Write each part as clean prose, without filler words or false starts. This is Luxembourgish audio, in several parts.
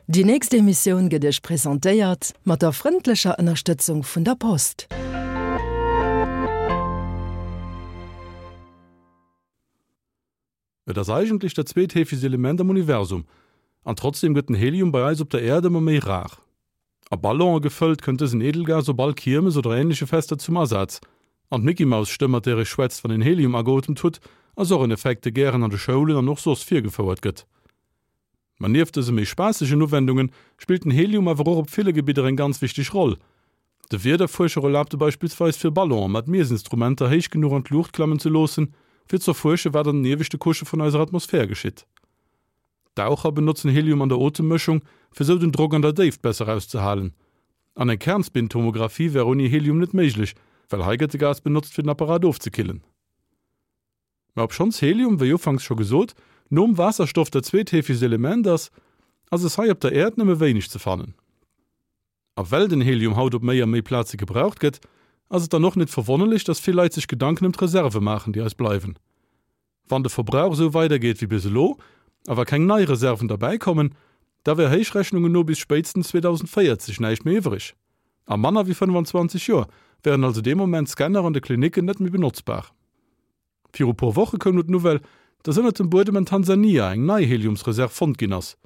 Déi nächst Emissioun gëtt Iech presentéiert mat der frëndlecher Ënnerstëtzung vun der Post. Et ass eigentlech dat zweetheefegst Element am Universum, an trotzdeem gëtt den Helium bei eis op der Äerd ëmmer méi rar. A Ballonë gefëllt kënnt dësen Edelgas op all Kiermes oder änleche Fester zum Asaz. An d'Mickey-Maus-Stëmm, mat där ee schwätzt, wann een Helium ageotemt hutt, ass och en Effekt, dee gären an de Schoulen an och soss virgefouert gëtt. Ma nieft dëse méi spaassegen Uwendunge spillt den Helium awer och op ville Gebidder eng ganz wichteg Roll. De Wiederfuerscher erlaabt e beispillsweis fir Ballonen mat Miessinstrumenter héich genuch an d'Luucht klammen ze loossen, fir z'erfuersche wat an den ieweschte Couchë vun eiser Atmosphär geschitt. Daucher benotzen Helium an der Otemmëschung, fir sou den Drock an der Déift besser auszehalen. An eng Kernspintomographie wär ouni Helium net méiglech, well hei gëtt de Gas benotzt fir den Apparat ofzekillen. Mä obschonns Helium, wéi ufanks scho gesot, nom Waasserstoff dat zweetheefegst Element ass, ass es hei op der Äerd nëmme wéineg ze fannen. A well den Helium haut op méi a méi Plaze gebraucht gëtt, ass et dann och net verwonnerlech, dass vill Leit sech Gedanken ëm d'Reserve maachen, déi eis bleiwen. Wann de Verbrauch esou weidergeet wéi bis elo, a wa keng nei Reserven derbäikommen, da wär Héichrechnungen no bis spéitstens 2040 näischt méi iwwreg. A manner wéi 25 Joer wären also dee Moment d'Scanner an de Klinicken net méi benotzbar. Viru puer Woche koum no d'Nouvelle, dass ënnert dem Buedem an Tansania eng nei Heliumsreserv fonnt ginn ass.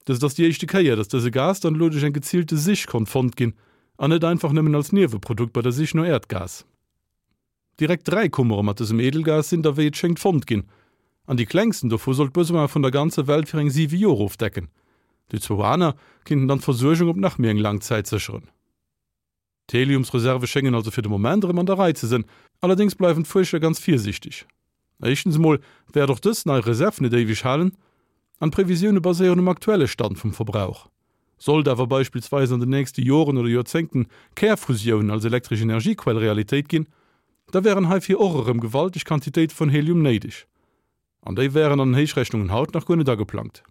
Dëst ass déi éischte Kéier, dass dëse Gas dann elo duerch eng geziilte Sich konnt fonnt ginn an net einfach nëmmen als Nieweprodukt bei der Sich no Äerdgas. Direkt 3 Kummere mat dësem Edelgas sinn da wéi et schéngt fonnt ginn an déi klengsten dovu soll d'Besoine vun der ganzer Welt fir eng 7 Joer ofdecken. Déi zwou aner kinnten dann d'Versuergung op nach méi eng laang Zäit sécheren. D'Heliumsreserve schéngen also fir de Moment erëm an der Rei ze sënn, allerdéngs bleiwen d'Fuerscher ganz virsiichteg. Éischtens emol wäert och dës nei Reserv net éiweg halen, an d'Previsioune baséieren um aktuelle Stand vum Verbrauch. Sollt awer beispillsweis an den nächste Joren oder Joerzéngten Kärfusioun als elektresch Energiequell Realitéit ginn, da wären heifir och erëm gewalteg Quantitéite vun Helium néideg. An déi wären an den Héichrechnungen haut nach guer net ageplangt.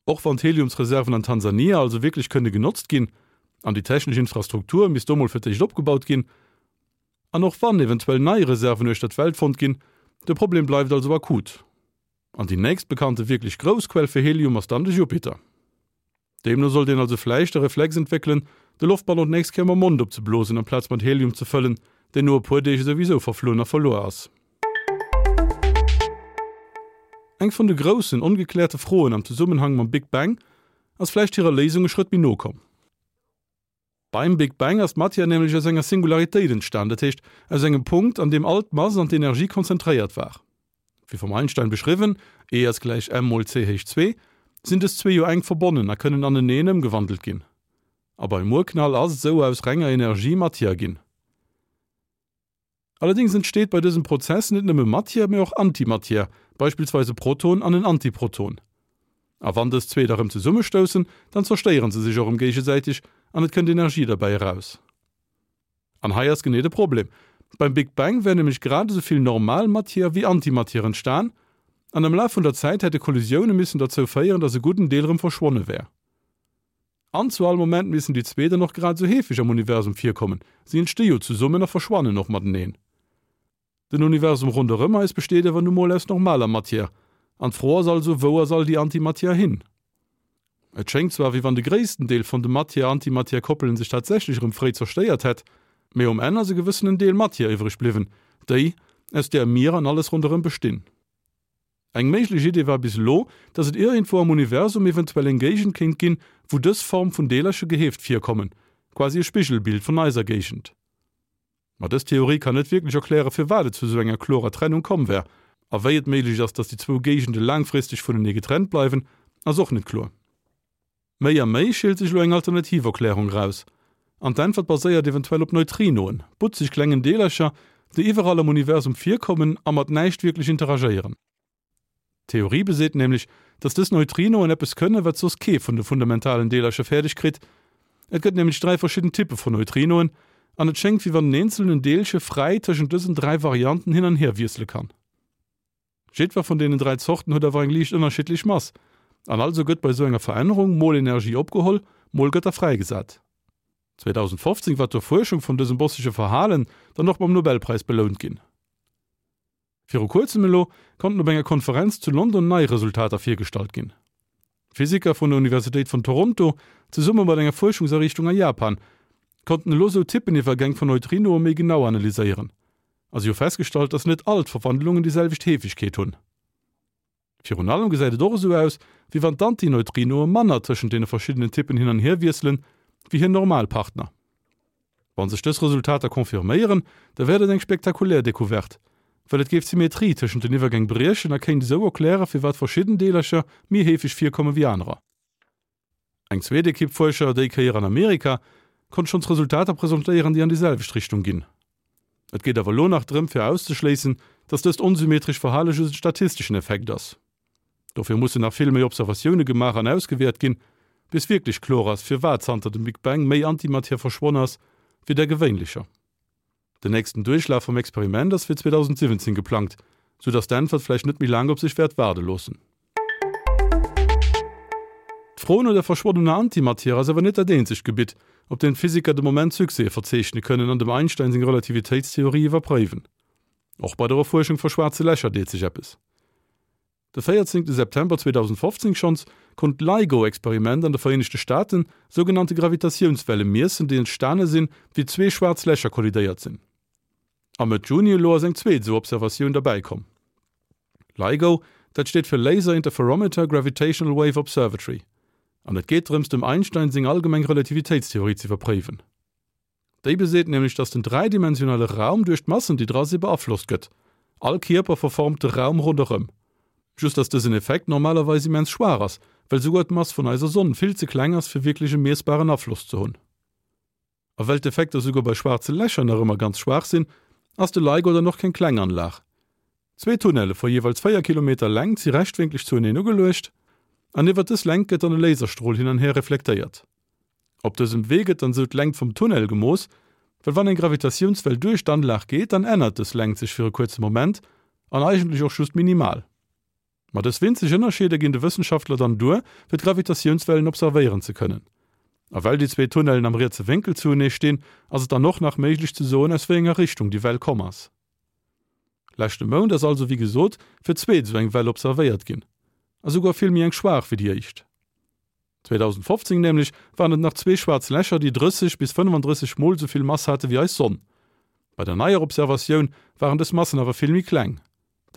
Och wann d'Heliumsreserven an Tansania also wierklech kënne genotzt ginn, an déi technesch Infrastruktur misst do mol fir d'éischt opgebaut ginn, an och wann eventuell nei Reserven uechter d'Welt fonnt ginn, de Problem bleift also akut. An déi nächst bekannte wierklech grouss Quell fir Helium ass dann de Jupiter. Deemno sollt een also vläicht de Reflex entwéckelen, de Loftballon d'nächst Kéier mam Mond opzeblosen amplaz mat Helium ze fëllen, deen no e puer Deeg esouwisou verflunn a verluer ass. Eng vun de groussen ongekläerte Froen am Zesummenhang mam Big Bang ass vläicht hirer Léisung e Schrëtt méi no komm. Beim Big Bang ass d'Matière nämlech aus enger Singularitéit entstan, dat heescht aus engem Punkt, an deem all d'Mass an d'Energie konzentréiert war. Wéi vum Einstein beschriwwen, E ass gläich m mol c héich zwee, sinn dës zwee jo enk verbonnen a kënnen aneneen ëmgewandelt ginn. A beim Urknall ass esou aus renger Energie Matière ginn. Allerdéngs entsteet bei dësem Prozess net nëmme Matière, mee och Antimatière, beispillsweis e Proton an en Antiproton. A wann dës zwee da rëm zesummestoussen, dann zerstéiere se sech och rëm géigesäiteg an et kënnt Energie derbäi eraus. An hei ass genee de Problem, Beim Big Bang wär nämlech grad esou vill normal Matière wéi Antimatière entstan, an am Laf vun der Zäit hätte Kollisioune missen derzou féieren, datt e gudden Deel rëm verschwonne wär. An zu all Moment missen déi zwee dann och grad esou heefeg am Universum virkommen, si entsti jo zesummen a verschwannen och mateneen. Den Universum ronderëm eis besteet awer nu mol aus normaler Matière, an d'Fro ass also, wou ass all déi Antimatière hin? Et schéngt zwar, wéi wann de gréissten Deel vun de Matière-Antimatière-Koppelen sech tatsächlech erëm fréi zerstéiert hätt, mee um Enn ass e gewëssenen Deel Matière iwwreg bliwwen, déi, aus där mir an alles ronderëm bestinn. Eng méiglech Idee war bis elo, datt et iergendwou am Universum eventuell eng Géigend kéint ginn, wou dës Form vun Deelerche geheeft virkommen, quasi e Spigelbild vun eiser Géigend. Ma dës Theorie kann net wierklech erkläre firwat et zu esou enger klorer Trennung komm wär. A wéi et méiglech ass, datt déi zwou Géigende laangfristeg vunenee getrennt bleiwen, ass och net kloer. Méi a méi schielt sech elo eng alternativ Erklärung eraus. An d'Äntwert baséiert eventuell op Neutrinoen, butzeg klengen Deelercher, déi iwwerall am Universum virkommen a mat näischt wierklech interagéieren. D'Theorie beseet nämlech, dass dës Neutrinoen eppes kënne wat soss kee vun de fundamentalen Deelercher fäerdeg kritt. Et gëtt nämlech 3 verschidden Typpe vun Neutrinoen an et schéngt wéi wann en eenzelnen Deelche fräi tëschent dësen 3 Varianten hin an hier wiessele kann. Jiddwer vun deenen 3 Zorten huet awer eng liicht ënnerschiddlech Mass, an also gëtt bei sou enger Verännerung mol Energie opgeholl, mol gëtt der fräigesat. 2015 war d'Erfuerschung vun dësem bossege Verhalen dann och mam Nobelpräis belount ginn. Viru kuerzem elo konnten op enger Konferenz zu London nei Resultater virgestallt ginn. Physiker vun der Universitéit vun Toronto, zesumme mat enger Fuerschungsariichtung a Japan, konnten elo sou Typeniwwergäng vun Neutrinoe méi genau analyséieren. A si hu festgestallt, dass net all d'Verwandlungen déi selwecht Heefegkeet hunn. Virun allem gesäit et och esou aus, wéi wann d'Antineutrinoe manner tëschent deene verschiddenen Typpen hin an hier wiesselen, wéi hir normal Partner. Wa sech dës Resultater confirméieren, da wär dat eng spektakulär Decouverte, well et géif d'Symmetrie tëschent den Iwwergäng briechen a kéint esou erkläre firwat verschidden Deelercher méi heefeg virkomme wéi anerer. Eng zweet Ekipp Fuerscher, déi Kéier an Amerika, konnt schonns Resultater presentéieren, déi an déi selwecht Richtung ginn. Et geet awer elo nach drëm fir auszeschléissen, datt dëst onsymmetresch Verhale just en statisteschen Effekt ass. Dofir mussen nach vill méi Observatioune gemaach an ausgewäert ginn, bis wierklech kloer ass, firwat zanter dem Big Bang méi Antimatière verschwonn ass, wéi där gewéinlecher. Den nächsten Duerchlaf vum Experiment ass fir 2017 geplangt, sou datt d'Äntwert vläicht net méi laang op sech wäert waarde loossen. D'Fro no der verschwonnener Antimatière ass awer net dat eenzegt Gebitt, op deem d'Physiker de Moment Succèse verzeechne kënnen an dem Einstein seng Relativitéitstheorie iwwerpréiwen. Och bei der Erfuerschung vu schwaarze Lächer deet sech eppes. De 14 September 2015 schonns konnt d'LIGO-Experiment an de Vereenegte Staaten sougenannte Gravitatiounswelle miessen, déi entstane sinn, wéi zwee schwaarz Lächer kollidéiert sinn. A Mëtt Juni elo ass eng zweet esou Observatioun derbäi komm. LIGO, dat steet fir Laser Interferometer Gravitational Wave Observatory an et geet drëms, dem Einstein seng allgemeng Relativitéitstheorie z'iwwerpréiwen. Déi beseet nämlech, datt den dräidimensionale Raum duerch d'Massen, déi dra si beaflosst gëtt. All Kierper verformt de Raum ronderëm. Just datt dësen Effekt normalerweis immens schwaach ass, well souguer d'Mass vun eiser Sonn vill ze kleng ass, fir wierklech e miessbaren Afloss ze hunn. A well d'Effekter souguer bei schwaarze Lächer nach ëmmer ganz schwaach sinn, ass de LIGO dann och keng kleng Anlag. Zwee Tunnelle vu jeeweils 4 Kilometer Längt si rechtwénklech zueneen ugeluecht an iwwer dës Längt gëtt dann e Laserstrol hin an hier reflektéiert. Op dësem Wee gëtt dann sou d'Längt vum Tunnel gemooss, well wann eng Gravitatiounswell duerch d'Anlag geet, dann ännert dës Längt sech fir e kuerze Moment an eigentlech och just minimal. Ma dës winzeg Ënnerscheeder ginn de Wëssenschaftler dann duer, fir d'Gravitatiounswellen observéieren ze kënnen. A well déi zwee Tunnellen am rietse Wénkel zuenee stinn, ass et dann och nach méiglech ze soen, aus wéi enger Richtung déi Well komm ass. Leschte Mount ass also wéi gesot fir d'zweet esou eng Well observéiert ginn, a souguer vill méi eng schwaach wéi déi éischt. 2015 nämlech waren et nach zwee schwaarz Lächer, déi 30 bis 35 mol esou vill Mass hate wéi eis Sonn. Bei der neier Observatioun waren dës Massen awer vill méi kleng,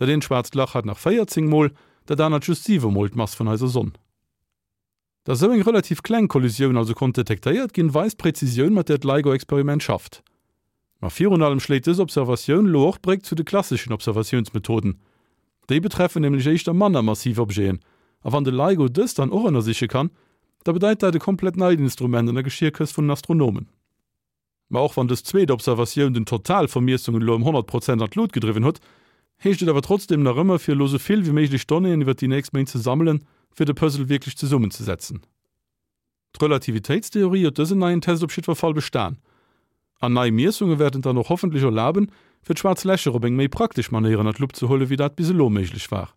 dat eent schwaarzt Lach hat nach 14 mol, dat anert just 7 mol d'Mass vun eiser Sonn. Datt esou eng relativ kleng Kollisioun also konnt detektéiert ginn, weist d'Präzisioun, mat där d'LIGO-Experiment schafft. Ma virun allem schléit dës Observatioun elo och d'Bréck zu de klasseschen Observatiounsmethoden. Déi betreffen nämlech éischter manner massiv Objeten, a wann de LIGO dës dann och ënnersiche kann, da bedeit dat e komplett neit Instrument an der Geschierkëscht vun den Astronomen. Ma och wann dës zweet Observatioun den Total vu Miessungen elo ëm 100 Prozent an d'Lut gedriwwen huet, heescht et awer trotzdeem nach ëmmer, fir elo sou vill wéi méiglech Donnéeën iwwert déi nächst Méint ze sammelen, fir de Puzzle wierklech zesummenzesetzen. D'Relativitéitstheorie huet dësen neien Test op jiddwer Fall bestan. An nei Miessunge wäerten et dann och hoffentlech erlaben, fir d'schwaarz Lächer op eng méi praktesch Manéier ënner d'Lupp ze huelen, wéi dat bis elo méiglech war.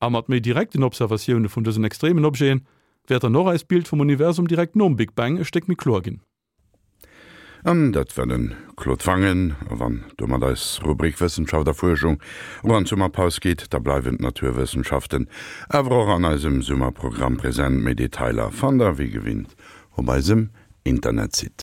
A mat méi direkten Observatioune vun dësen extremen Objeten wäert dann och eist Bild vum Universum direkt nom Big Bang e Stéck méi kloer ginn. An dat war de Claude Wangen. A wann domat eis Rubrik Wëssenschaft a Fuerschung och an d'Summerpaus geet, da bleiwen d'Naturwëssenschaften awer och an eisem Summerprogramm present. Méi Detailer fannt der wéi gewinnt op eisem Internetsite.